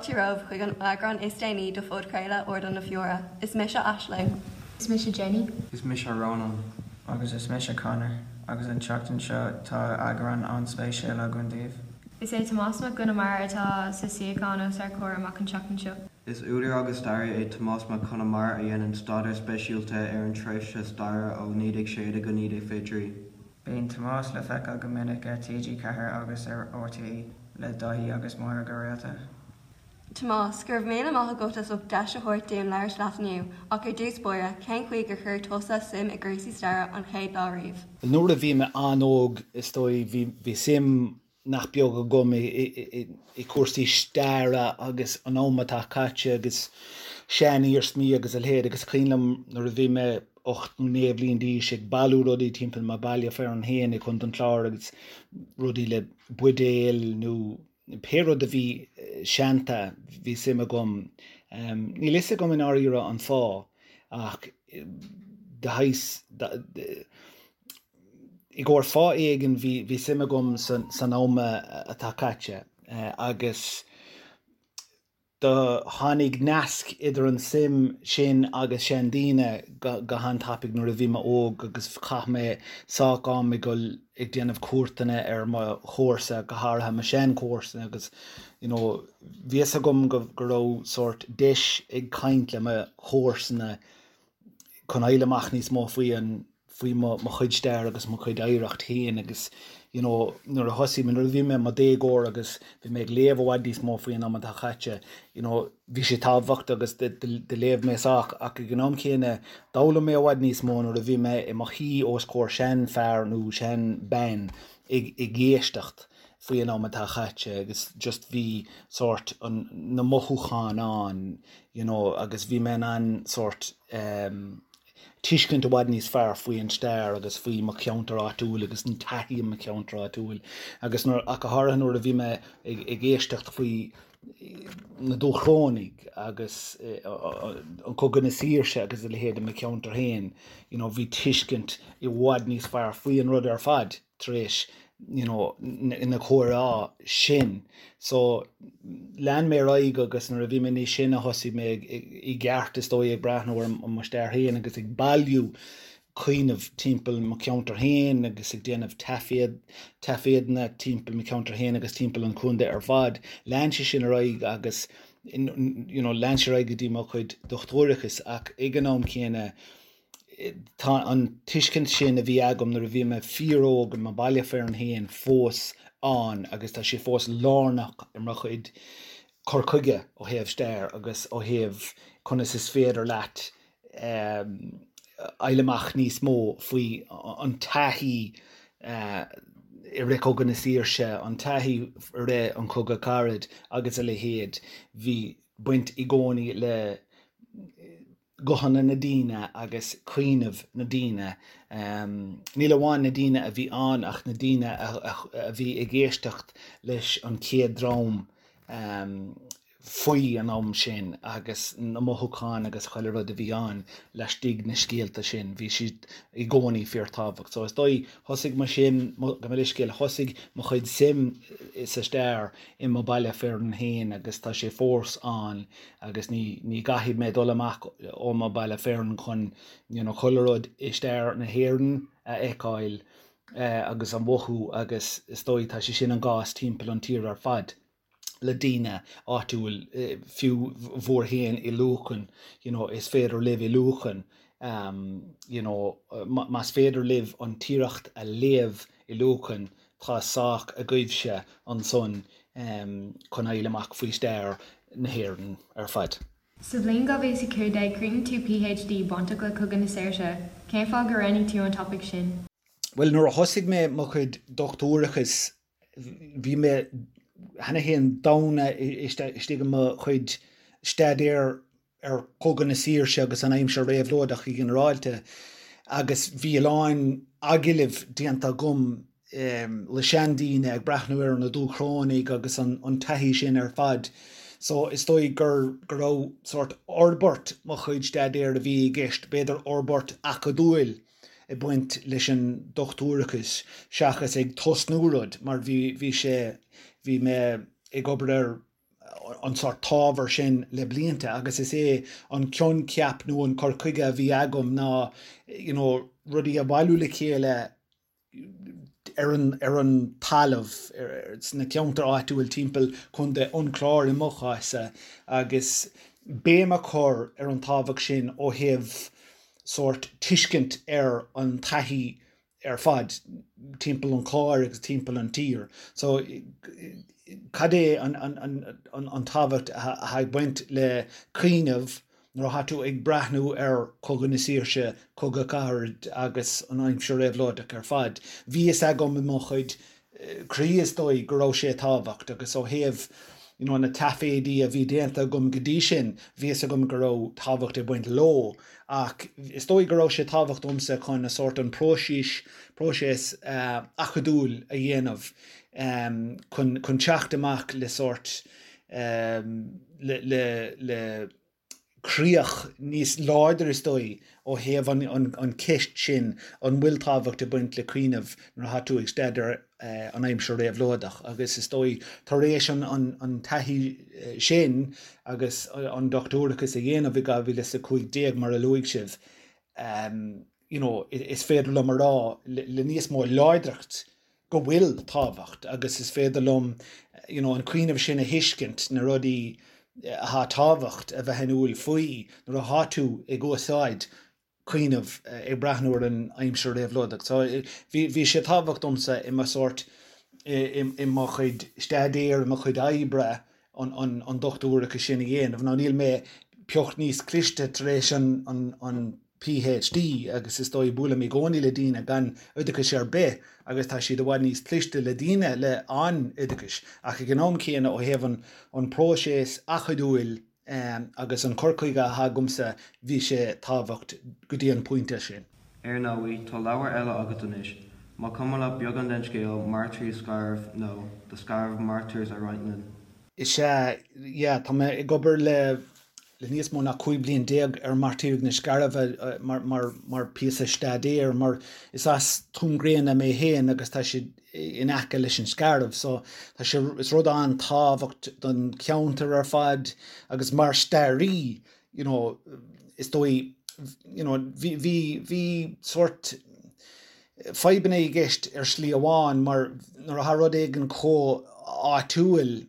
fáilte romhaibh chuig an eagrán is déanaí de phodchraoladh Ardán na Feóire. Is mise Aisling. Is mise Jenny. Is mise Rónán. Agus is mise Conor. Agus an tseachtain seo tá eagrán an-spéisiúil againn daoibh. Is é Tomás Mac Con Iomaire atá sa suíochán os ár comhair amach an tseachtain seo. Is údar agus staraí é Tomás Mac Con Iomaire a dhéanann staidéar speisialta ar an tréimhse staire ó 1916 go 1923. Bíonn Tomás le feiceáil go minic ar TG4 agus ar RTÉ le Daithí agus Máire go rialta. Tomás, go raibh míle maith agat as ucht deis a thabhairt dúinn labhairt leat inniu, ach ar dtús báire, cén chaoi gur chuir tusa suim i gcúrsaí staire an chéad lá riamh? Nuair a bhí mé an-óg, is dóigh, bhí bhí suim nach beag agam i gcúrsaí staire agus an am atá caite agus sean-iarsmaí agus a leithéid agus is cuimhin liom nuair a bhí mé 8 nó 9 bhliain d'aois ag bailiú rudaí timpeall mo baile fearainn féin i gContae an Chláir agus rudaí le buidéil nó pé rud a bhí seanta bhí suim agam. Níl fhios agam i ndáiríre an fáth ach de shaghas i gcomhair fáth éigin bhí bhí suim agam san am atá caite agus do tháinig nasc idir an suim sin agus seandaoine go han-tapaidh nuair a bhí mé óg agus chaith mé sách am ag dul ag déanamh cuairteanna ar mo chomharsa, go háirithe mo shean-chomharsana agus you know bhí fhios agam go go raibh sórt deis ag caint le mo chomharsana chun fháil amach níos mó faoi an faoi mo mo chuid stair agus mo chuid oidhreacht féin agus you know nuair a thosaigh mé nuair a bhí mé i mo dhéagóir agus bhí mé ag léamh i bhfad níos mó faoi an am atá caite you know bhí sé tábhachtach agus do léamh mé sách ach ag an am céanna d'fhoghlaim mé i bhfad níos mó nuair a bhí mé i mo shuí os comhair seanfhear nó seanbhean ag ag éisteacht faoi an am atá caite agus just bhí sórt an na mothúcháin ann you know agus bhí mé in ann sórt ehm tuiscint i bhfad níos fearr faoi an stair agus faoi mo cheantar áitiúil agus an taithí i mo cheantar áitiúil agus nuair, ach go háirithe nuair a bhí mé ag, ag éisteacht faoi na Dúchrónaigh agus an Cogadh na Saoirse agus a leithéid i mo cheantar féin, you know, bhí tuiscint i bhfad níos fearr faoi an rud ar fad. tar éis you know na comhrá sin. So lean mé ar aghaidh agus nuair a bhí mé níos sine thosaigh mé i gceart is dóigh ag breathnú ar mo stair féin agus ag bailiú cuimhneamh timpeall mo cheantar féin agus ag déanamh taifead, taifeadanna timpeall mo cheantar féin agus timpeall an chontae ar fad. Lean sé sin ar aghaidh agus you know lean sé ar aghaidh go dtí mo chuid dochtúireachais ach ag an am céanna Tá an tuiscint sin a bhí agam nuair a bhí mé fíor-óg i mo bhaile fearainn féin fós ann agus tá sé fós lárnach i mo chuid cur chuige ó thaobh stair agus ó thaobh conas is féidir leat fháil amach níos mó faoi an taithí i rith Cogadh na Saoirse, an taithí i rith an Chogadh Carad agus a leithéid. Bhí baint i gcónaí le guthanna na daoine agus cuimhneamh na daoine, níl amháin na daoine a bhí ann ach na daoine a bhí ag éisteacht leis an chéad dream faoi an am sin agus na mothúcháin agus chuile rud a bhí ann laistigh na scéalta sin, bhí siad i gcónaí fíorthábhacht. So is dóigh, thosaigh mo shuim, gabh mo leithscéal, thosaigh mo chuid suim sa stair i mo baile fearainn féin agus tá sé fós ann agus ní ní gcaithfidh mé dul amach ó mo baile fearainn chun you know chuile rud i stair na hÉireann a fheiceáil agus a mhothú agus is dóigh tá sé sin an gcás timpeall an tír ar fad le daoine áitiúil fiú bhur féin i Lucan you know is féidir libh i Lucan you know más féidir libh an Tiaracht a léamh i Lucan Tá sách agaibhse ansan chun fháil amach faoi stair na hÉireann ar fad. Sa bhliain 2015, chríochnaigh tú PhD bainteach le Cogadh na Saoirse. Cén fáth gur roghnaigh tú an topaic sin? Bhuel, nuair a thosaigh mé mo chuid dochtúireachais, bhí mé cheana féin domhain istigh i mo chuid staidéir ar Chogadh na Saoirse agus an aimsir réabhlóideach go ginearálta agus bhí a lán agallaimh déanta agam le seandaoine ag breathnú ar na Dúchrónaigh agus an taithí sin ar fad. So is dóigh gur go raibh sórt fhorbairt mo chuid staidéir a bhí i gceist, b'fhéidir fhorbairt acadúil ag baint leis an dochtúireachas seachas ag tosnú rud mar bhí bhí sé bhí mé ag obair ar. an sórt t-ábhar sin le blianta agus is é an coincheap nó an cur chuige a bhí agam ná you know rudaí a bhailiú le chéile ar an ar an talamh sna ceantair áitiúil timpeall Contae an Chláir i mo chás-sa agus béim a chur ar an tábhacht sin ó thaobh sórt tuiscint ar an taithí ar fad timpeall an Chláir agus timpeall an tír. So cad é an an tábhacht atá ag baint le cuimhneamh nuair atá tú ag breathnú ar Chogadh na Saoirse, Cogadh Cathartha agus an aimsir réabhlóideach ar fad. Bhí fhios agam i mo chuid croí is dóigh go raibh sé tábhacht agus ó thaobh you know na taiféidí a bhí déanta agam go dtí sin bhí fhios agam go raibh tábhacht ag baint leo ach is dóigh go raibh sé tábhacht domsa chun a sórt an próiseas próiseas acadúil a dhéanamh chun chun teacht amach le sórt le le le críoch níos láidre is dóigh ó thaobh an cheist sin an bhfuil tábhacht ag baint le cuimhneamh nuair atá tú ag staidéar an aimsir réabhlóideach agus is dóigh tar éis an taithí sin agus an dochtúireachas a dhéanamh i 2015 mar a luaigh sibh you know is féidir liom a rá le níos mó láidreacht go bhfuil tábhacht agus is féidir liom you know an cuimhneamh sin a thuiscint, na rudaí atá tábhacht a bheith in iúl faoi nuair atá tú ag úsáid cuimhneamh ag breathnú ar an aimsir réabhlóideach. So bhí bhí sé tábhacht domsa i mo sórt i i mo chuid staidéir, i mo chuid oibre an an an dochtúireachas sin a dhéanamh. Now níl mé pioc níos cliste tar éis an an an PhD agus is dóigh buailim i gcónaí le daoine gan oideachas ar bith agus tá siad i bhfad níos cliste le daoine le an-oideachais ach ag an am céanna ó thaobh an an próiseas acadúil agus an cur chuige atá agamsa bhí sé tábhacht go dtí an pointe sin. Ar ndóigh, tá leabhar eile agat anois. Má cuma leat beagán den scéal, Mairtírigh Scairbh nó The Scariff Martyrs a roinnt linn. Is ea, yeah, tá mé ag obair le le níos mó ná 15 bliain ar Mairtírigh na Scairbhe mar mar mar píosa staidéir mar is as Tuaim Gréine mé féin agus tá siad in aice leis an Scairbh so tá sé is rud an-tábhacht don cheantar ar fad agus mar staraí you know is dóigh you know bhí bhí bhí sórt fadhbanna i gceist ar shlí amháin mar nuair atá rud éigin chomh áitiúil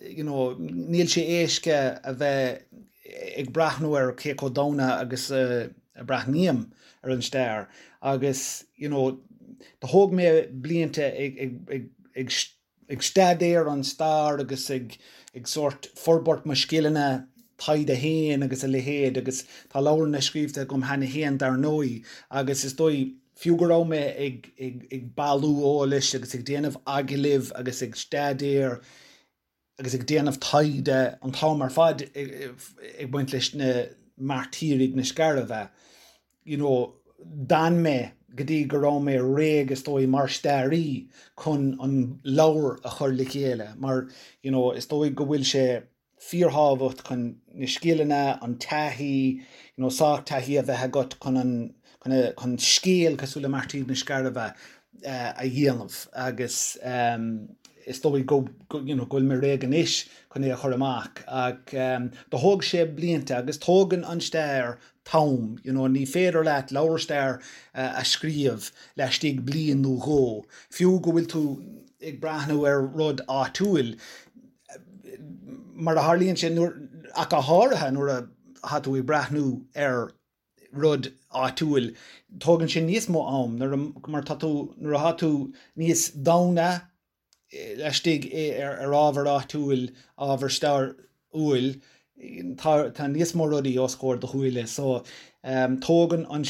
you know, níl sé éasca a bheith ag breathnú ar cé chomh domhain agus a breathnaím ar an stair agus you know, do thóg mé blianta ag, ag, ag, ag, ag staidéar an stair agus ag, ag sórt forbairt mo scileanna taighde féin agus a leithéid agus tá leabharanna scríobhta agam cheana féin dar ndóigh agus is dóigh fiú go raibh mé ag ag bailiú eolais agus ag déanamh agallaimh agus ag staidéar agus ag déanamh taighde an t-am ar fad ag baint leis na mairtírigh na Scairbhe, you know, d'fhan mé go dtí go raibh mé réidh is dóigh mar staraí chun an leabhar a chur le chéile mar, you know, is dóigh go bhfuil sé fíorthábhacht chun na scileanna, an taithí, you know, sách taithí a bheith agat chun an, chun a, chun scéal cosúil le Mairtírigh na Scairbhe a dhéanamh agus is dóigh go, go, you know, go bhfuil mé réidh anois chun é a chur amach ach do thóg sé blianta agus tógann an stair t-am, you know, ní féidir leat leabhar stair a scríobh laistigh bliain nó dhó, fiú go bhfuil tú ag breathnú ar rud áitiúil, mar a tharlaíonn sé, nuair, ach go háirithe nuair atá tú ag breathnú ar rud áitiúil, tógann sé níos mó am nuair a, mar tá tú, nuair atá tú níos domhaine laistigh ar, ar ábhar áitiúil, ábhar stairiúil, tá, tá níos mó rudaí os comhair do shúile. So, tógann an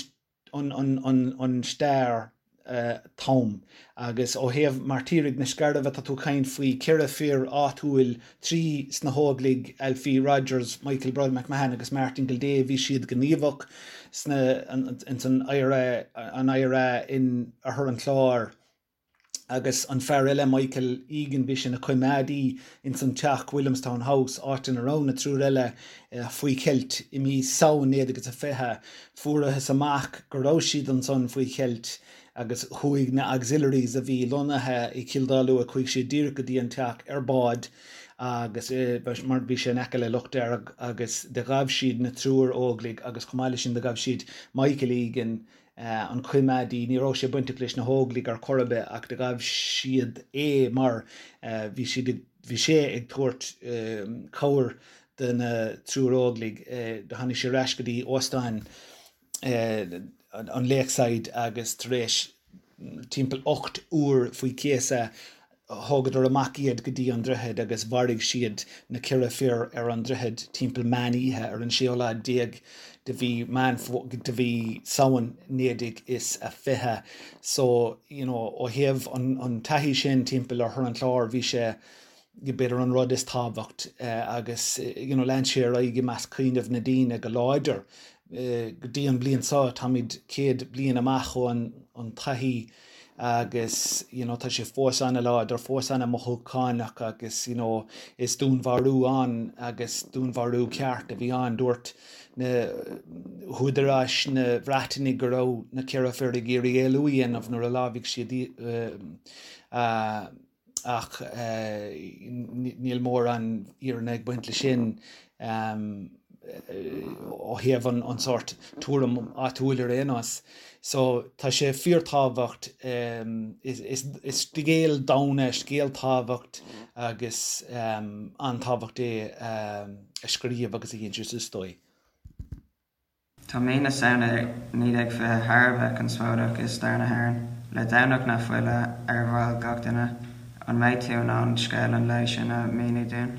an stair t-am. Agus ó thaobh Mairtírigh na Scairbhe, tá tú ag caint faoi cheithre fir áitiúil, 3 sna hÓglaigh, Alfie Rogers, Michael Bride McMahon agus Martin Gildea, bhí siad gníomhach sna, ins an IRA, an IRA in Oirthear an Chláir. Agus an fear eile, Michael Egan, bhí sé ina choimeádaí ins an teach, Williamstown House, áit ina raibh na triúr eile faoi cheilt i mí Samhain 1920. Fuarathas amach go raibh siad ansan faoi cheilt agus chuaigh na Auxiliaries a bhí lonnaithe i Cill Dá Lua, chuaigh siad díreach go dtí an teach ar bád. agus mar bhí sé in aice le Loch Dearg agus do ghabh siad na triúr Óglaigh agus chomh maith leis sin do ghabh siad Michael Egan, an coimeádaí, ní raibh sé bainteach leis na hÓglaigh ar chor ar bith ach do ghabh siad é mar bhí siad ag, bhí sé ag tabhairt cabhair do na triúr Óglaigh. Do tháinig sé ar ais go dtí óstán an Lakeside agus tar éis timpeall 8 uair faoi chéasadh thógadar amach iad go dtí an droichead agus mharaigh siad na ceithre fir ar an droichead timpeall meán oíche ar an séú lá déag de mhí Meán de mhí Samhain 1920. So, you know, ó thaobh an an taithí sin timpeall oirthear an Chláir bhí sé b'fhéidir an rud is tábhacht agus you know lean sé ar aghaidh i measc cuimhneamh na daoine go láidir. Go dtí an bliain seo táimid 100 bliain amach ó an an taithí agus you know tá sé fós an-láidir, fós an-mothúchánach agus you know is dúnmharú ann agus dúnmharú ceart a bhí ann. Dúirt na húdaráis na Breataine go raibh na ceithre fir ag iarraidh éalú a dhéanamh nuair a lámhaigh siad ach níl mórán fhírinne ag baint leis sin ó thaobh an sórt tuairim áitiúil ar aon nós. So tá sé fíorthábhacht, is scéal domhain é, scéal tábhacht agus an-tábhacht é a scríobh agus a insint is dóigh. Tá mí na Samhna 1920 thar a bheith conspóideach i stair na hÉireann, le Domhnach na Fola ar bhéal gach duine. An mbeidh tú in ann scéal an lae sin a mhíniú dúinn?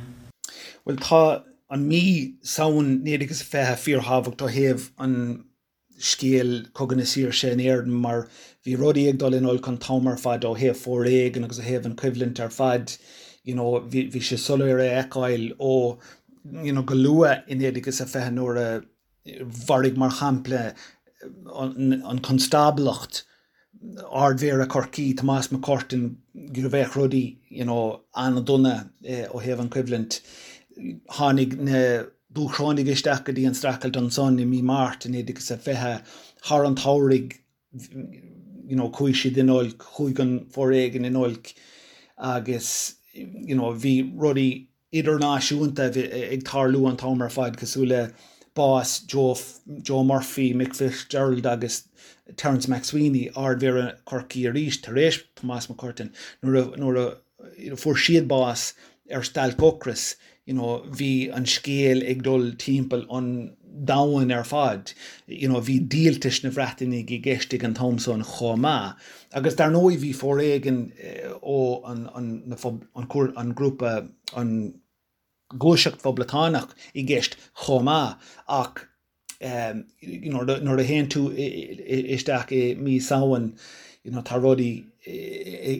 Bhuel, tá an mí Samhain 1920 fíorthábhacht ó thaobh an scéal Cogadh na Saoirse in Éirinn mar bhí rudaí ag dul in olc an t-am ar fad ó thaobh foréigean agus ó thaobh an choimhlint ar fad. You know, bhí sé soiléir a fheiceáil ó you know, go luath i 1920 nuair a mharaigh, mar shampla, an Constáblacht, Ard-Mhéara Chorcaí, Tomás MacCurtain, go bheadh rudaí you know an-dona ó thaobh an choimhlint. Tháinig na Dúchrónaigh isteach go dtí an streachailt ansan i mí Márta 1920. Thar an tsamhraidh you know chuaigh siad in olc, chuaigh an foréigean in olc agus you know bhí rudaí idirnáisiúnta ag tarlú an t-am ar fad, cosúil le bás Joe Joe Murphy, Mick Fitzgerald agus Terence MacSwiney, Ard-Mhéara Chorcaí arís, tar éis Tomás MacCurtain, nuair a nuair a fuair siad bás ar stailc ocrais, you know, bhí an scéal ag dul timpeall an domhain ar fad. You know, bhí díoltais na Bhreatanaigh i gceist ag an t-am san chomh maith. Agus dar ndóigh bhí foréigean ó an an grúpa, an ghluaiseacht phoblachtánach i gceist chomh maith ach you know nuair a théann tú isteach i mí Samhain you know tá rudaí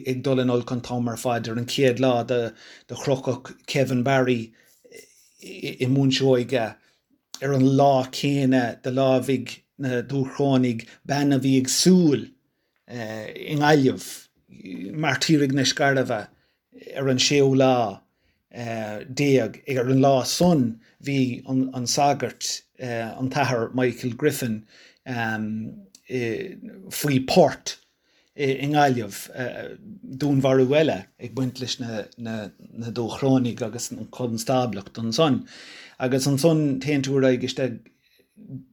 ag dul in olc an t-am ar fad. Ar an chéad lá do crochadh Kevin Barry i mBun Seoige ar an lá céanna do lámhaigh na Dúchrónaigh bean a bhí ag siúl i nGaillimh, Mairtírigh na Scairbhe, ar an séú lá déag. Ar an lá san bhí an sagart, an tAthair Michael Griffin, faoi port i nGaillimh, dúnmharú eile ag baint leis na Dúchrónaigh agus an Chonstáblacht ansan. Agus ansan téann tú ar aghaidh isteach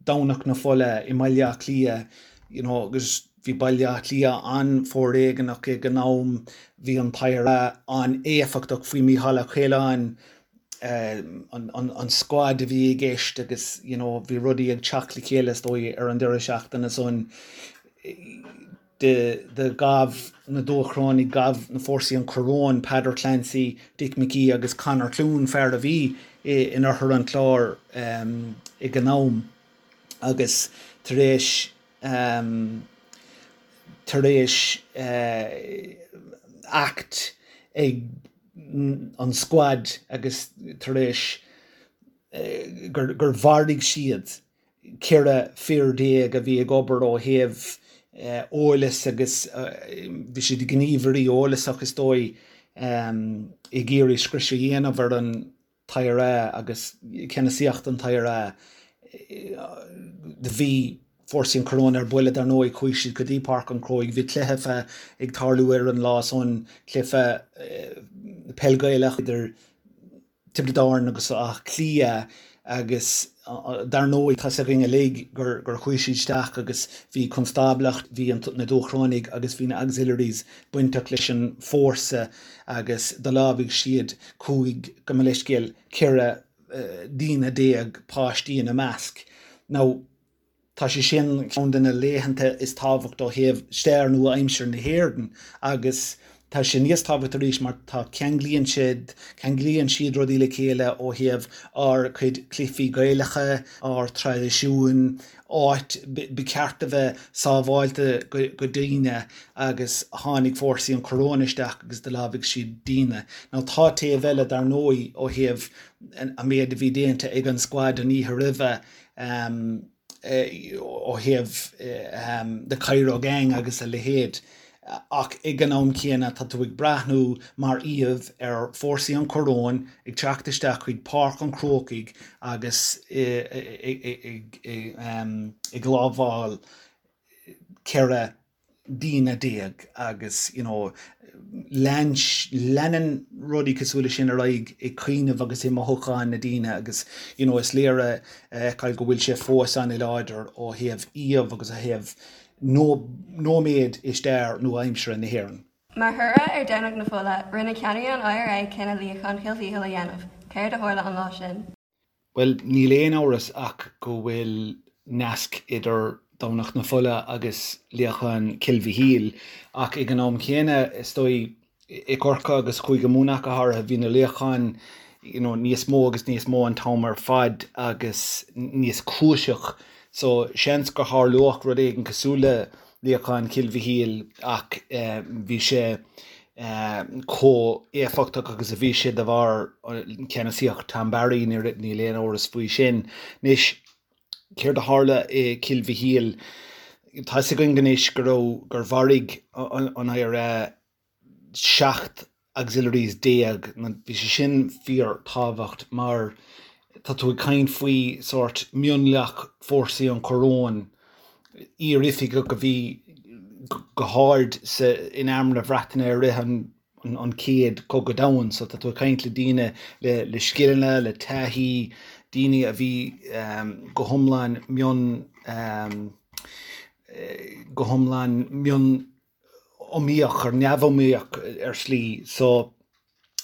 Domhnach na Fola i mBaile Átha Cliath, you know, agus bhí Baile Átha Cliath an-fhoréigeanach ag an am, bhí an t-IRA an-éifeachtach faoi Mícheál Ó Coileáin, an scuad a bhí i gceist agus, you know, bhí rudaí ag teacht le chéile is dóigh ar an deireadh seachtaine san. Do ghabh na Dúchrónaigh, ghabh na fórsaí an Choróin, Peadar Clancy, Dick McGee agus Conor Clune, fear a bhí in oirthear an Chláir ag an am agus tar éis tar éis act ag an scuad agus tar éis gur mharaigh siad 14 fir a bhí ag obair ó thaobh eolais agus bhí siad gníomhairí eolasach is dóigh ag iarraidh scrios a dhéanamh ar an t-IRA agus ceannasaíocht an t-IRA. Do bhí fórsaí an Choróin ar buile dar ndóigh, chuaigh siad go dtí Páirc an Chrócaigh, bhí cluiche ag tarlú ar an lá san, cluiche peil Gaelach idir. Tiobraid Árann agus Áth Cliath agus dar ndóigh tá 's againn uilig gur gur chuaigh siad isteach agus bhí constáblacht, bhí na Dúchrónaigh agus bhí na Auxiliaries bainteach leis an fórsa agus do lámhaigh siad 15, gabh mo leithscéal, 14 daoine, páistí ina measc. Now. Tá sé sin ceann de na laethanta is tábhacht ó thaobh stair nua-aimseartha na hÉireann agus tá sé níos tábhacht arís mar tá ceanglaíonn siad, ceanglaíonn siad rudaí le chéile ó thaobh ár cuid cluichí Gaelacha, ár traidisiúin, áit ba cheart a bheith sábháilte go daoine agus tháinig fórsaí an choróin isteach agus do lámhaigh siad daoine. Now tá taobh eile dar ndóigh ó thaobh an méid a bhí déanta ag an squad an oíche roimhe, ó thaobh the Cairo Gang agus a leithéid ach ag an am céanna tá tú ag breathnú mar íomh ar fórsaí an choróin ag teacht isteach chuig Páirc an Chrócaigh agus ag lámháil 14 daoine agus you know lean leanann rudaí cosúil leis sin ar aghaidh i cuimhneamh agus i mothúcháin na daoine agus you know is léir a fheiceáil go bhfuil sé fós an-láidir ó thaobh íomh agus ó thaobh nóiméad i stair nua-aimseartha na hÉireann. Mar thoradh ar Domhnach na Fola, rinne ceannairí an IRA cinneadh luíochán Chill Mhíchíl a dhéanamh. Céard a tharla an lá sin? Bhuel, níl aon amhras ach go bhfuil nasc idir Domhnach na Fola agus luíochán Chill Mhichíl, ach ag an am chéanna, is dóigh, i gCorcaigh agus Chúige Mumhan ach go háirithe, bhí na luíocháin you know níos mó agus níos mó an t-am ar fad agus níos cúiseach. So, seans gur tharlódh rud éigin cosúil le luíochán Chill Mhichíl ach bhí sé chomh éifeachtach agus a bhí sé de bharr ceannasaíocht Tom Barry, níl aon amhras faoi sin. Anois, céard a tharla i Cill Mhichíl? Tá 'fhios againn anois go raibh, gur mharaigh an IRA 17 auxiliaries. Bhí sé sin fíor tábhacht mar tá tú ag caint faoi sórt mionlach fórsaí an choróin, iar-oifigeach a bhí go hard sa in arm na Breataine i rith an an chéad cogadh domhan so tá tú ag caint le daoine le le scileanna, le taithí, daoine a bhí go hiomlán mion go hiomlán mion iomaíoch or neamhiomaíoch ar shlí so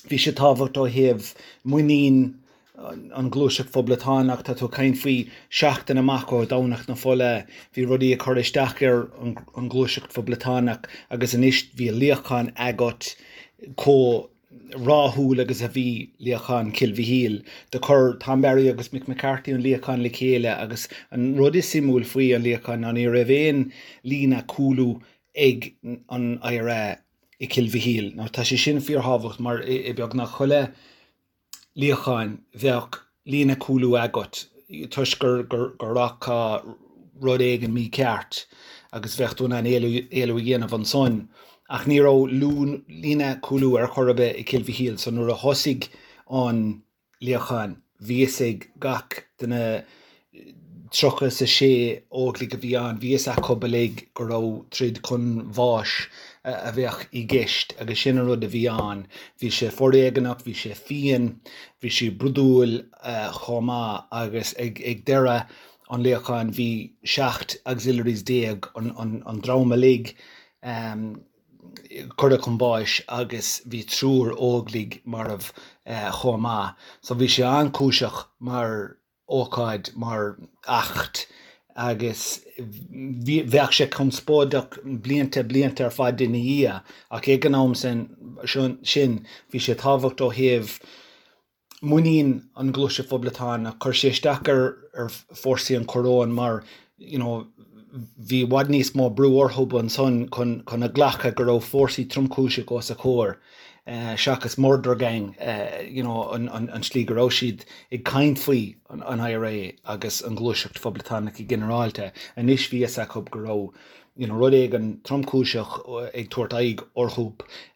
bhí sé tábhacht ó thaobh muinín an ghluaiseacht phoblachtánach, tá tú ag caint faoi seachtain amach ó Dhomhnach na Fola, bhí rudaí ag cur isteach ar an ghluaiseacht phoblachtánach agus anois bhí luíochán agat chomh rathúil agus a bhí luíochán Chill Mhichíl. Do chuir Tom Barry agus Mick McCarthy an luíochán le chéile agus an rud is suimiúil faoi an luíochán ná ní raibh aon líne cúlú ag an IRA i Cill Mhichíl. Now tá sé sin fíorthábhacht mar i beagnach chuile luíochán bheadh líne cúlú agat toisc gur go rachadh rud éigin mícheart agus bheadh tú in ann éalú a dhéanamh ansan. Ach ní raibh líne cúlú ar chor ar bith i Cill Mhichíl so nuair a thosaigh an luíochán bhí fhios ag gach de na 36 óglaigh a bhí ann, bhí fhios acu uilig go raibh troid chun bháis a bheadh i gceist agus sin an rud a bhí ann. Bhí sé foréigeanach, bhí sé fiain, bhí sé brúidiúil chomh maith agus ag deireadh an luíocháin bhí 17 auxiliaries an dream uilig curtha chun báis agus bhí triúr óglaigh marbh chomh maith. So bhí sé an-chúiseach mar ócáid, mar eachtra agus bheadh sé conspóideach blianta, blianta ar fad ina dhiaidh ach ag an am sin bhí sé tábhacht ó thaobh muinín an Ghluaiseacht Phoblachtánach. Chuir sé isteach ar fórsaí an choróin mar you know bhí i bhfad níos mó brú orthu ansan chun chun a ghlacadh go raibh fórsaí tromchúiseach os a chomhair seachas murder gang you know an an tslí go raibh siad ag caint faoi an IRA agus an Ghluaiseacht Phoblachtánach go ginearálta. Anois bhí fhios acu go raibh you know rud éigin tromchúiseach ag tabhairt aghaidh orthu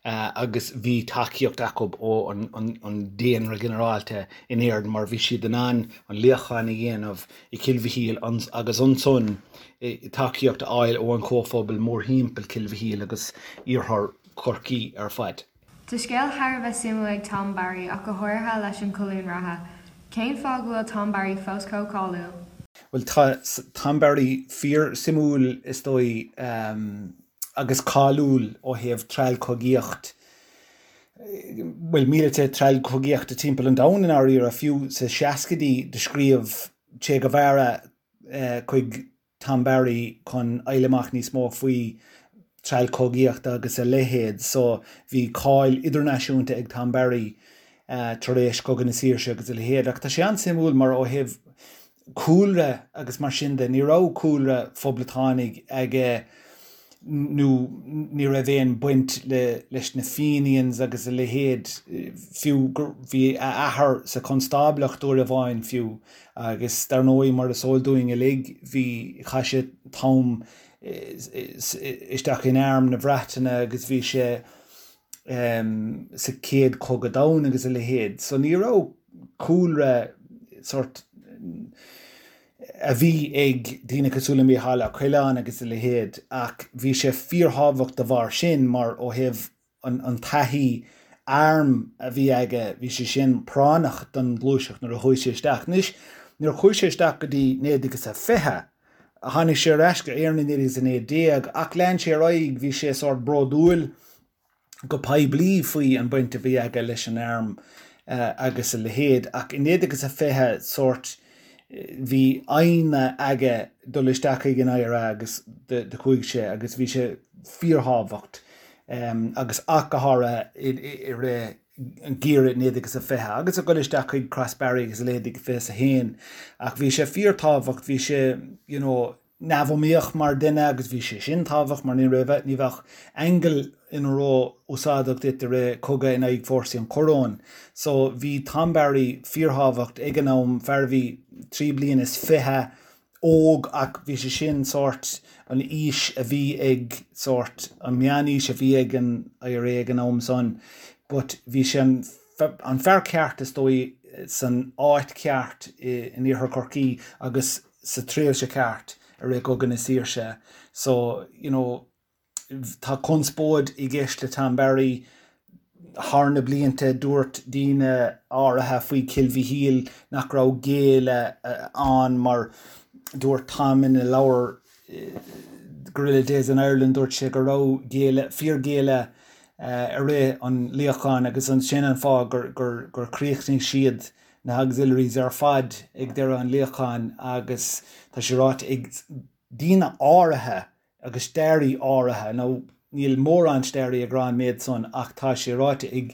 agus bhí tacaíocht acu ó an daonra ginearálta in Éirinn mar bhí siad in ann an luíochán a dhéanamh i Cill Mhichíl agus ansan tacaíocht a fháil ó an chomhphobal mórthimpeall Cill Mhichíl agus iarthar Chorcaí ar fad. Tá scéal thar a bheith suimiúil ag Tom Barry ach go háirithe leis an colún reatha. Cén fáth go bhfuil Tom Barry fós chomh cáiliúil? Bhuel tá Tom Barry fíor suimiúil is dóigh agus cáiliúil ó thaobh treallchogaíocht, bhuel míleata treallchogaíochta timpeall an domhain i ndáiríre, fiú sa seascaidí do scríobh Che Guevara chuig Tom Barry chun fháil amach níos mó faoi treallchogaíocht agus a leithéid so bhí cáil idirnáisiúnta ag Tom Barry tar éis Cogadh na Saoirse agus a leithéid ach tá sé an-suimiúil mar ó thaobh cúlra agus mar sin de ní raibh cúlra phoblachtánaigh aige nó ní raibh aon baint le leis na Fenians agus a leithéid fiú gur bhí a athair sa chonstáblacht uair amháin fiú Agus dar ndóigh, mar is eol dúinn uilig, bhí, chaith sé t-am isteach in arm na Breataine agus bhí sé sa Chéad Chogadh Domhanda agus a leithéid. So ní raibh cúlra sort a bhí ag daoine cosúil le Mícheál Ó Coileáin agus a leithéid ach bhí sé fíorthábhacht de bharr sin mar ó thaobh an taithí airm a bhí aige, bhí sé sin práinneach don ghluaiseacht nuair a chuaigh sé isteach. Anois, nuair a chuaigh sé isteach go dtí 1920, tháinig sé ar ais go Éirinn i 1919 ach lean sé ar aghaidh, bhí sé sórt bródúil go poiblí faoi an baint a bhí aige leis an arm agus a leithéid ach i 1920 sórt bhí foighne aige dul isteach chuig an IRA agus do chuaigh sé agus bhí sé fíorthábhacht agus ach go háirithe i rith an geimhreadh 1920 agus ag dul isteach chuig Crossbarry agus a leithéid 21 ach bhí sé fíorthábhacht bhí sé you know neamhiomaíoch mar duine agus bhí sé sin tábhacht mar ní raibh, ní bheadh aingeal ina ró-úsáideach duit i rith cogadh in aghaidh fórsaí an choróin. So bhí Tom Barry fíorthábhacht ag an am, fear a bhí 23 bliana óg ach bhí sé sin sórt an aois a bhí ag sórt an meánaois a bhí ag an IRA ag an am san but bhí sé an an fear ceart is dóigh san áit ceart in iarthar Chorcaí agus sa tréimhse ceart i rith Cogadh na Saoirse. So, you know, tá conspóid i gceist le Tom Barry thar na blianta, dúirt daoine áirithe faoi Chill Mhichíl nach raibh géilleadh ann mar dúirt Tom ina leabhar Guerrilla Days in Ireland, dúirt sé go raibh géilleadh, fíorghéilleadh i rith an luíocháin agus sin an fáth gur gur chríochnaigh siad na hauxiliaries ar fad ag deireadh an luíocháin agus tá sé ráite ag daoine áirithe agus staraí áirithe, nó níl mórán staraí ag rá an méid san ach tá sé ráite ag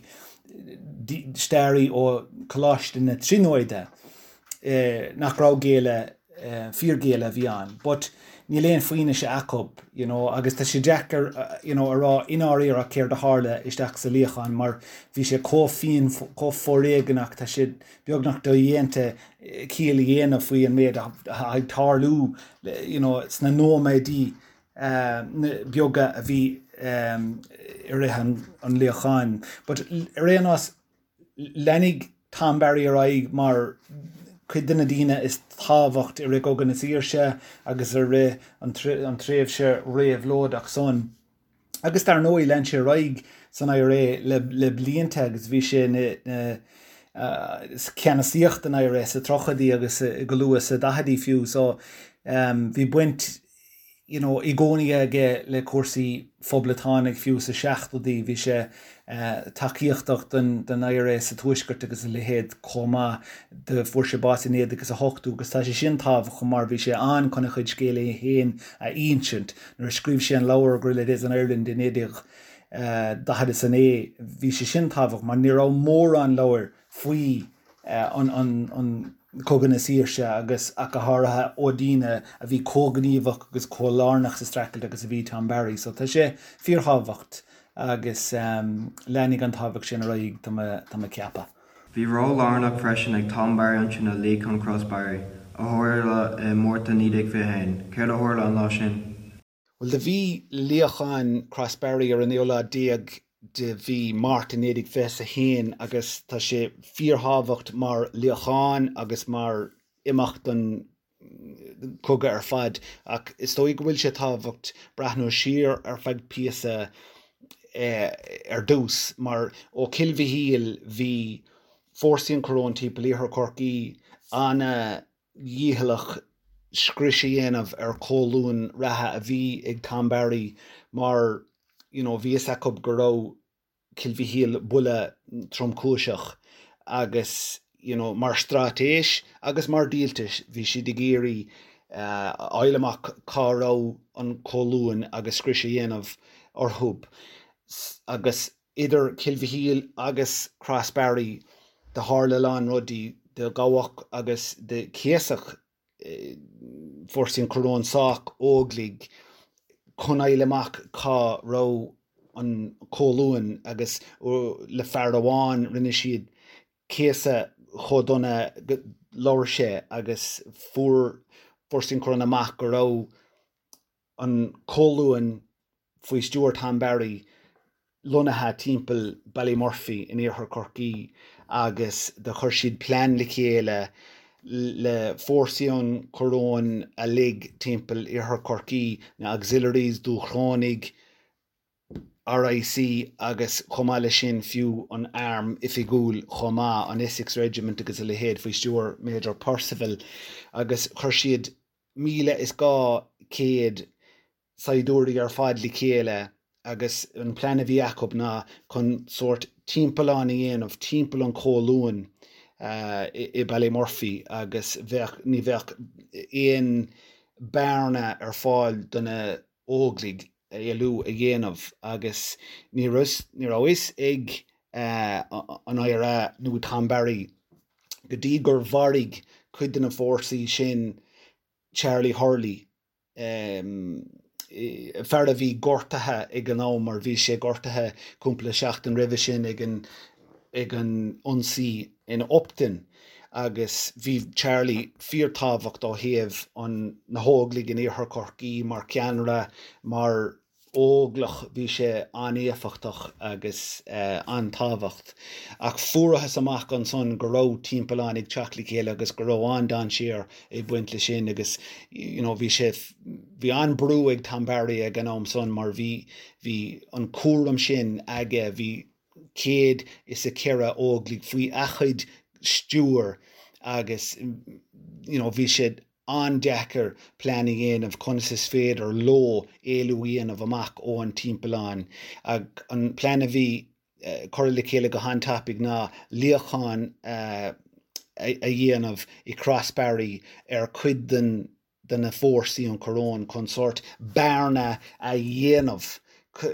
staraí ó Choláiste na Tríonóide nach raibh géilleadh fíorghéilleadh a bhí ann but níl aon fianaise acu you know agus tá sé deacair you know a rá i ndáiríre céard a tharla isteach sa luíochán mar bhí sé chomh fiain chomh foréigeanach tá sé beagnach dodhéanta ciall a dhéanamh faoi an méid atá ag tarlú you know sna nóiméidí beaga a bhí i rith an luíocháin but ar aon nós Leanfaidh Tom Barry ar aghaidh mar chuid de na daoine is tábhacht i rith Chogadh na Saoirse agus i rith an tréimhse réabhlóideach san. Agus dar ndóigh lean sé ar aghaidh san IRA le blianta agus bhí sé ina ceannasaíocht den IRA sa tríochaidí agus go luath sa daicheadaí fiú so bhí baint you know, i gcónaí aige le cúrsaí phoblachtánaigh, fiú sa seachtóidí bhí sé tacaíochtach don IRA sa Tuaisceart agus a leithéid chomh maith. Do fuair sé bás i 1980 agus tá sé sin tábhachtach mar bhí sé ann chun a chuid scéal é féin a insint. Nuair a scríobh sé an leabhar Guerrilla Days in Ireland i 1949 bhí sé sin tábhachtach mar ní raibh mórán leabhair faoi an Cogadh na Saoirse agus ach go háirithe ó daoine a bhí chomh gníomhach agus chomh lárnach sa streachailt agus a bhí Tom Barry. So tá sé fíorthábhacht agus leanfaidh an tábhacht sin ar aghaidh tá mé ag ceapadh. Bhí ról lárnach freisin ag Tom Barry ansin i Luíochán Crossbarry, a tharla i Márta 1921. Céard a tharla an lá sin? Bhuel, do bhí luíochán Crossbarry ar an naoú lá déag de mhí Márta 1921 agus tá sé fíorthábhacht mar luíochán agus mar imeacht don cogadh ar fad ach is dóigh go bhfuil sé tábhacht breathnú siar ar feadh píosa. Ar dtús, mar ó Cill Mhichíl bhí fórsaí an Choróin timpeall Iarthar Chorcaí ana-dhícheallach scrios a dhéanamh ar cholún reatha a bhí ag Tom Barry mar you know bhí fhios acu go raibh Cill Mhichíl buille tromchúiseach agus you know mar straitéis agus mar dhíoltas bhí siad ag iarraidh a fháil amach cá raibh an colún agus scrios a dhéanamh orthu agus idir Cill Mhichíl agus Crossbarry do tharla a lán rudaí, do gabhadh agus do céasadh fórsaí an Choróin sách Óglaigh chun fháil amach cá raibh an colún agus le fear amháin rinne siad céasadh chomh dona go labhair sé agus fuair fórsaí an Choróin amach go raibh an colún faoi stiúir Tom Barry lonnaithe timpeall Ballymurphy in iarthar Chorcaí agus do chuir siad plean le chéile le fórsaí an Choróin uilig timpeall iarthar Chorcaí, na Auxiliaries, Dúchrónaigh, RIC agus chomh maith leis sin fiú an arm oifigiúil chomh maith, an Essex Regiment agus a leithéid faoi stiúir Major Percival agus chuir siad 1,200 saighdiúirí ar fad le chéile agus an plean a bhí acu ná chun sórt timpeallán a dhéanamh timpeall an cholúin i Ballymurphy agus bheadh, ní bheadh aon bearna ar fáil do na Óglaigh éalú a dhéanamh agus ní raibh, ní raibh fhios ag an IRA nó Tom Barry go dtí gur mharaigh cuid de na fórsaí sin Charlie Hurley, fear a bhí gortaithe ag an am mar bhí sé gortaithe cúpla seachtain roimhe sin ag an ag an ionsaí in Upton agus bhí Charlie fíorthábhacht ó thaobh an na hÓglaigh in Iarthar Chorcaí mar cheannaire, mar Óglach bhí sé an-éifeachtach agus an-tábhacht. Ach fuarathas amach ansan go raibh timpeallán ag teacht le chéile agus go raibh an-dainséar ag baint le sin agus you know bhí sé, bhí an-brú ag Tom Barry ag an am san mar bhí, bhí an cúram sin aige, bhí 104 Óglaigh faoi a chuid stiúir agus you know bhí sé an-deacair plean a dhéanamh conas is féidir leo éalú a dhéanamh amach ó an timpeallán. An plean a bhí curtha le chéile go han-tapaidh ná luíochán a dhéanamh i Crossbarry ar chuid den de na fórsaí an Choróin chun sórt bearna a dhéanamh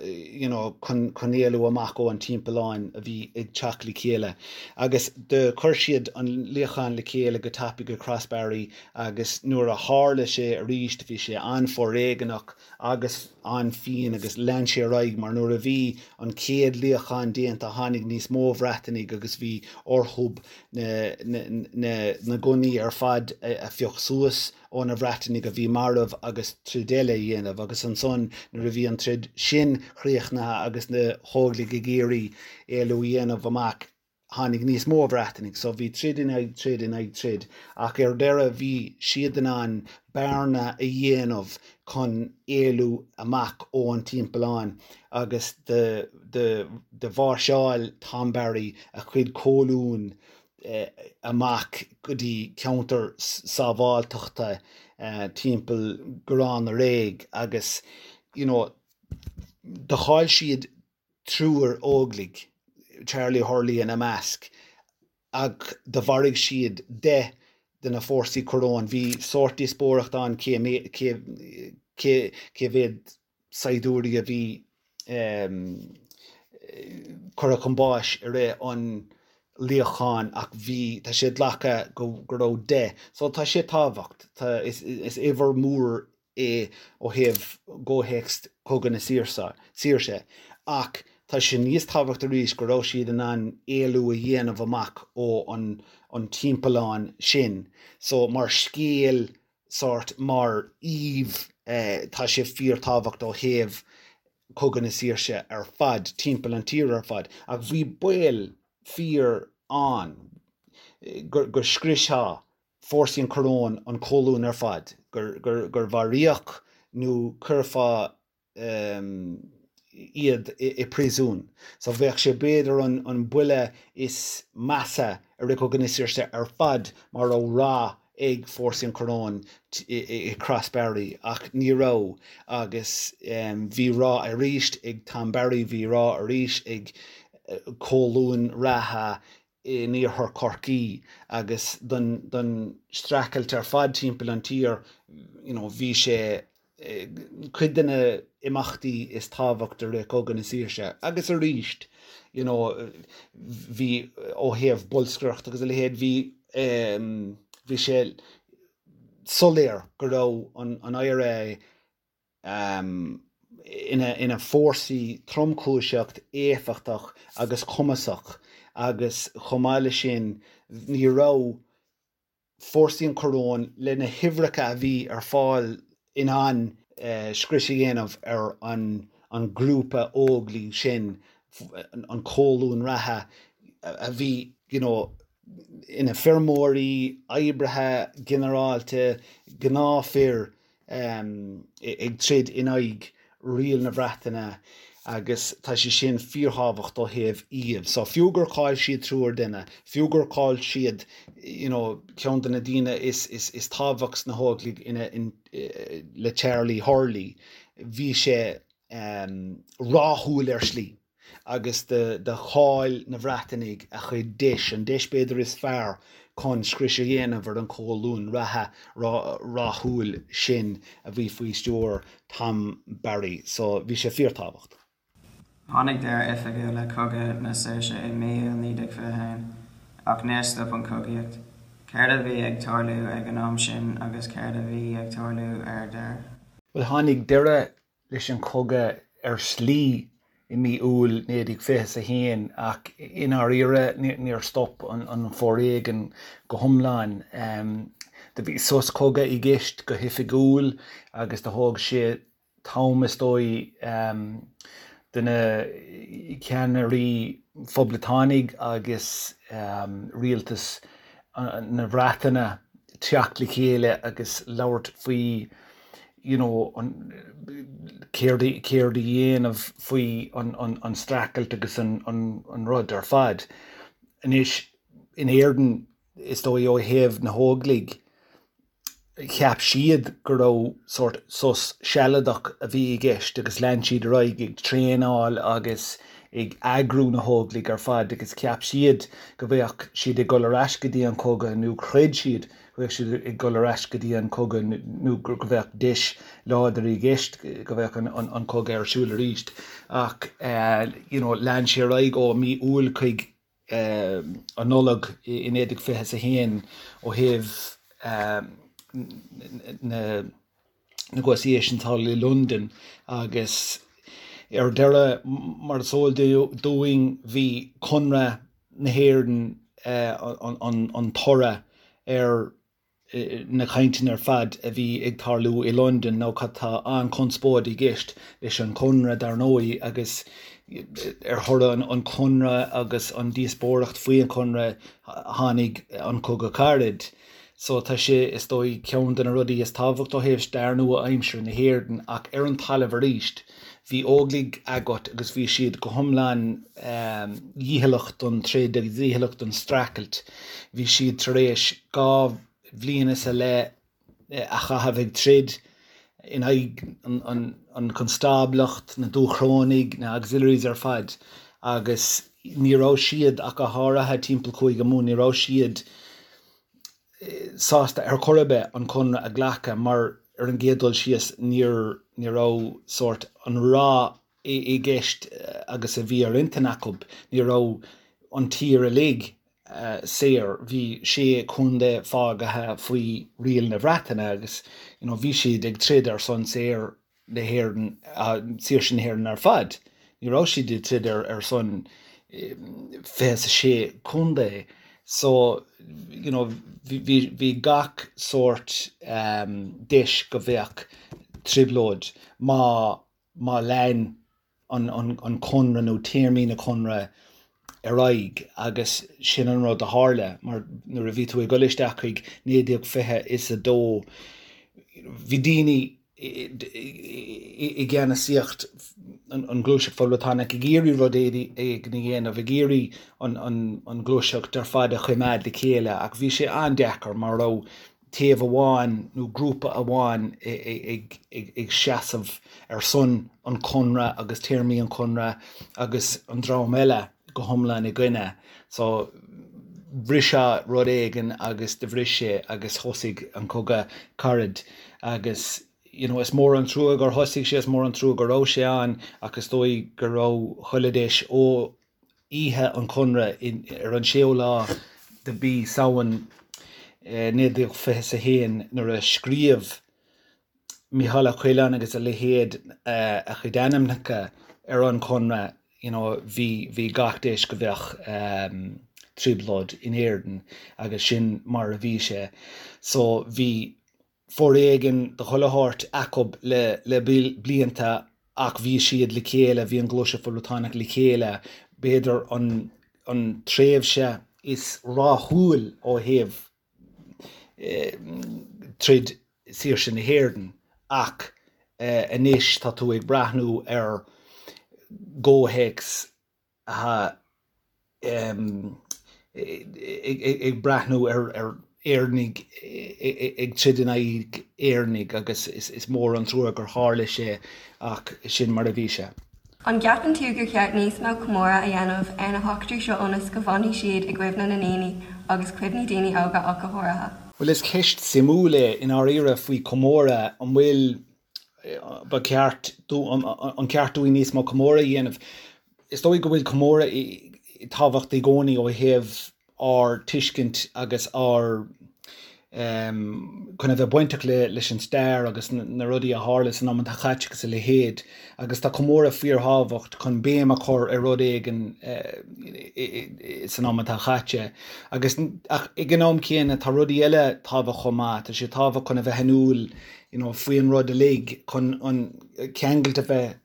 you know chun chun éalú amach ó an timpealláin a bhí ag teacht le chéile. Agus do chuir siad an luíochán le chéile go tapaidh i Crossbarry agus nuair a tharla sé arís bhí sé an-fhoréigeanach agus an-fhiáin agus lean sé ar aghaidh mar nuair a bhí an chéad luíochán déanta tháinig níos mó Bhreatanaigh agus bhí orthub na na na gunnaí ar fad a phioc suas ó na Bhreatanaigh a bhí marbh agus troid eile a dhéanamh agus ansan nuair a bhí an troid sin chríochnaithe agus na hÓglaigh ag iarraidh éalú a dhéanamh amach tháinig níos mó Bhreatanaigh so bhí troid in aghaidh troid in aghaidh troid ach ar deireadh bhí siad in ann bearna a dhéanamh chun éalú amach ó an timpeallán agus do do do mháirseáil Tom Barry a chuid colún amach go dtí ceantar sábháilteachta timpeall Garrán na Réidh agus you know do chaill siad triúr Óglaigh, Charlie Hurley ina measc, ach do mharaigh siad 10 de na fórsaí coróin. Bhí sórt díospóireacht ann cé cé cé mhéad saighdiúirí a bhí curtha chun báis i rith an luíocháin ach bhí, tá sé glactha go raibh 10. So tá sé tábhacht, tá, is uimhir mhór é ó thaobh gcomhthéacs Cogadh na Saoirse ach tá sé níos tábhacht arís go raibh siad in ann éalú a dhéanamh amach ó an timpeallán sin. So mar scéal sórt mar aoibh tá sé fíorthábhacht ó thaobh Cogadh na Saoirse ar fad, timpeall an tír ar fad. Ach bhí baol fíor ann go go scriosfadh fórsaí an Choróin an colún ar fad, gur gur gur mharaíodh nó cuirfeadh. iad i bpríosún. So bheadh sé b'fhéidir an buille is measa i rith Cogadh na Saoirse ar fad má raibh rath ag fórsaí an Choróin i Crossbarry ach ní raibh agus bhí rath arís ag Tom Barry, bhí rath arís ag colún reatha in iarthar Chorcaí agus don streachailt ar fad timpeall an tír you know bhí sé cuid de na imeachtaí is tábhacht i rith Cogadh na Saoirse agus arís you know bhí ó thaobh bolscaireacht agus a leithéid bhí bhí sé soiléir go raibh an IRA ina fórsaí tromchúiseach, éifeachtach agus cumasach agus chomh maith leis sin ní raibh fórsaí an Choróin le na huimhreacha a bhí ar fáil in ann scrios a dhéanamh ar an grúpa Óglaigh sin, an colún reatha a bhí you know ina feirmeoirí, oibrithe ginearálta, gnáthfhir. ag troid in aghaidh riail na Breataine agus tá sé sin fíorthábhacht ó thaobh iad. So fiú gur chaill siad triúr duine, fiú gur chaill siad you know ceann de na daoine is is is tábhacht sna hÓglaigh ina in le Charlie Hurley, bhí sé ráthúil ar shlí. agus do chaill na Breatanaigh a chuid deis, an deis b'fhéidir is fearr chun scrios a dhéanamh ar an cholún reatha ráthúil sin a bhí faoi stiúir Tom Barry. So bhí sé fíorthábhacht. Tháinig deireadh oifigiúil le Cogadh na Saoirse i mí Iúil 1921, ach níor stop an chogaíocht. Céard a bhí ag tarlú ag an am sin agus céard a bhí ag tarlú ar deireadh? Bhuel, tháinig deireadh leis an chogadh ar shlí i mí Iúil 1921 ach i ndáiríre níor stop an foréigean go hiomlán. Do bhí sos cogaidh i gceist go hoifigiúil agus do thóg sé t-am is dóigh do na ceannairí phoblachtánaigh agus rialtas na Breataine teacht le chéile agus labhairt faoi you know an céard céard a dhéanamh faoi an an an streachailt agus an an an rud ar fad. Anois in Éirinn is dóigh ó thaobh na hÓglaigh cheap siad go raibh sórt sos sealadach a bhí i gceist agus lean siad ar aghaidh ag traenáil agus ag eagrú na hÓglaigh ar fad agus cheap siad go bheadh siad ag dul ar ais go dtí an cogadh nó chreid siad go mbeadh siad ag dul ar ais go dtí an cogadh nó go mbeadh deis láidir i gceist go mbeadh an cogadh ar siúl arís. Ach you know lean sé ar aghaidh ó mí Iúil chuig an Nollaig i 1921 ó thaobh na negotiations thall i Londain agus ar deireadh mar is eol dúinn bhí Conradh na hÉireann an toradh ar na cainteanna ar fad a bhí ag tarlú i Londain nó tá an-chonspóid i gceist leis an Chonradh dar ndóigh agus ar thoradh an Chonradh agus an díospóireacht faoi an Chonradh tháinig an Cogadh Carad. So tá sé is dóigh ceann de na rudaí is tábhacht ó thaobh stair nua-aimseartha na hÉireann ach ar an talamh arís bhí Óglaigh agat agus bhí siad go hiomlán dícheallach don troid agus dícheallach don streachailt. Bhí siad tar éis 2 bhliain is a leith a chaitheamh ag troid in aghaidh an chonstáblacht, na Dúchrónaigh, na Auxiliaries ar fad agus ní raibh siad, ach go háirithe timpeall Chúige Mumhan, ní raibh siad sásta ar chor ar bith an conradh a ghlacadh mar ar an gcéad dul síos níor ní raibh sórt an rath i gceist agus a bhí ar intinn acu, ní raibh an tír uilig saor, bhí sé chontae fágaithe faoi riail na Breataine agus you know bhí siad ag troid ar son saor na hÉireann, saoirse na hÉireann ar fad. Ní raibh siad ag troid ar son 26 contae. So, you know, bhí bhí gach sórt deis go bheadh trioblóid má má lean an an conradh nó téarmaí na conradh ar aghaidh agus sin an rud a tharla mar nuair a bhí tú ag dul isteach chuig 1922 bhí daoine i gceannasaíocht. an Ghluaiseacht Phoblachtánach ag iarraidh rud éigin a dhéanamh, ag iarraidh an ghluaiseacht ar fad a choimeád le chéile ach bhí sé an-deacair mar raibh taobh amháin nó grúpa amháin ag seasamh ar son an Chonradh agus téarmaí an Chonradh agus an dream eile go hiomlán i gcoinne. So bhrisfeadh rud éigin agus do bhris sé agus thosaigh an Cogadh Carad agus you know is mór an trua gur thosaigh sé, is mór an trua go raibh sé ann ach is dóigh go raibh chuile deis ó oíche an Chonradh ar an séú lá de mhí Samhain 1921 nuair a scríobh Mícheál Ó Coileáin agus a leithéid a chuid ainmneacha ar an Chonradh you know bhí bhí gach deis go bheadh trioblóid in Éirinn agus sin mar a bhí sé. So bhí foréigean de chuile shórt acub le blianta ach bhí siad le chéile, bhí an Ghluaiseacht Phoblachtánach le chéile, b'fhéidir an tréimhse is rathúil ó thaobh troid saoirse na hÉireann ach anois tá tú ag breathnú ar gcomhthéacs atá ag breathnú ar Éireannaigh ag troid in aghaidh Éireannaigh agus is mór an trua gur tharla sé ach sin mar a bhí sé. An gceapann tú gur cheart níos mó comóradh a dhéanamh ar na heachtraí seo ionas go bhfanfaidh siad i gcuimhne na ndaoine agus cuimhní daoine óga ach go háirithe? Bhuel is ceist suimiúil é i ndáiríre faoi chomóradh, an bhfuil ba cheart an ceart dúinn níos mó comóradh a dhéanamh. Is dóigh go bhfuil comóradh tábhacht i gcónaí ó thaobh ár tuiscint agus ár chun a bheith bainteach leis an stair agus na rudaí a tharla san am atá caite agus a leithéid agus tá comóradh fíorthábhacht chun béim a chur ar rud éigin san am atá caite agus ach ag an am céanna tá rudaí eile tábhacht chomh maith, tá sé tábhacht chun a bheith in iúl you know, faoin rud uilig chun an ceangailt a bheith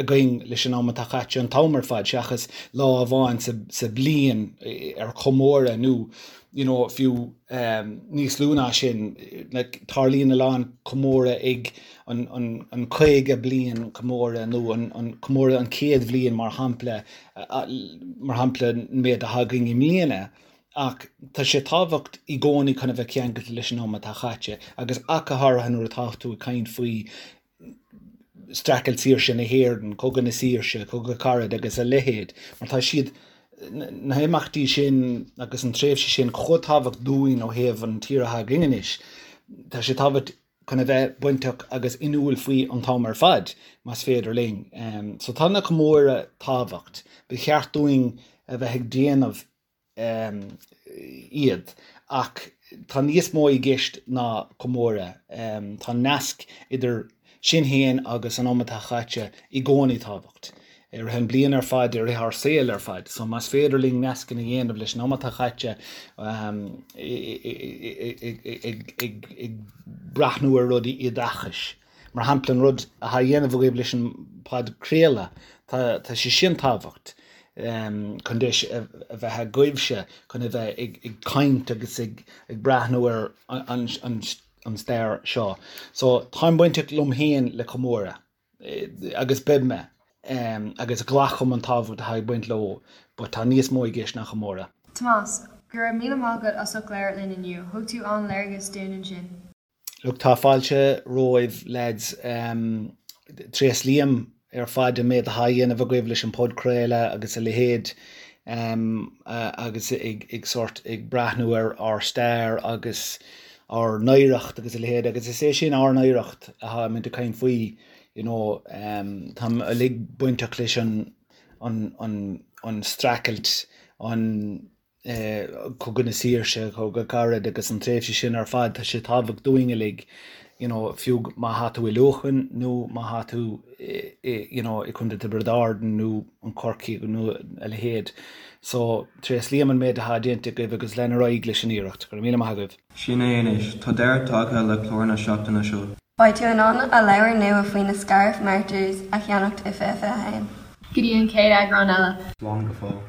againn leis an am atá caite an t-am ar fad seachas lá amháin sa, sa bliain ar chomóradh nó you know, fiú um, níos lú ná sin like, tarlaíonn a lán comóradh ag an, an, an 50 bliain comóradh nó an, an comóradh an 100 bhliain mar shampla mar shampla an méid atá againn i mbliana. Ach tá sé tábhacht i gcónaí chun a bheith ceangailte leis an am atá caite, agus ach go háirithe nuair atá tú ag caint faoi streachailt saoirse na hÉireann, Cogadh na Saoirse, Cogadh Carad agus a leithéid, mar tá siad, na himeachtaí sin agus an tréimhse sin chomh tábhacht dúinn ó thaobh an tír atá againn anois. Tá sé tábhacht chun a bheith bainteach agus inniúil faoi an t-am ar fad, más féidir linn. So tá na comóradh tábhacht. Ba cheart dúinn a bheith ag déanamh iad. Ach tá níos mó i gceist ná comóradh. Tá nasc idir sinn féin agus an am atá caite i gcónaí tábhacht. I rith an bliain ar fad, i rith ár saol ar fad. So más féidir linn nascanna a dhéanamh leis an am atá caite ag breathnú ar rudaí oideachais. Mar shampla, an rud atá á dhéanamh agaibh leis an bpodchraoladh, tá sé sin tábhacht chun deis a bheith agaibhse chun a bheith ag caint agus ag breathnú ar an stair seo. So, táim bainteach liom féin le comóradh agus beidh mé agus glacaim an tábhacht atá ag baint leo but tá níos mó i gceist ná comóradh. Tomás, Go raibh míle maith agat as ucht labhairt linn inniu. Thug tú an-léargas dúinn ansin. Look, tá fáilte romhaibh lads. Tréaslaím ar fad an méid atá á dhéanamh agaibh leis an podchraoladh agus a leithéid agus ag sórt ag breathnú ar ár stair agus ár n-oidhreacht agus a leithéid agus is é sin ár n-oidhreacht atáimid ag caint faoi you know táim uilig bainteach leis an an an an streachailt an Cogadh na Saoirse, Cogadh Carad agus an tréimhse sin ar fad, tá sé tábhacht dúinn uilig, you know, fiú má thá tú i Leamhcán nó má thá tú i, you know, i Contae Tiobraid Árann nó an Corcaigh nó a leithéid. So, tréaslaím an méid atá déanta agaibh agus lean ar aghaidh leis an iarracht. Go raibh míle maith agaibh. Sin é anois, tá deireadh tagtha le clár na seachtaine seo. Beidh tú in ann a leabhar nua faoi na Scariff Martyrs a cheannacht i 2021. Go dtí an chéad eagrán eile. Slán go fóill.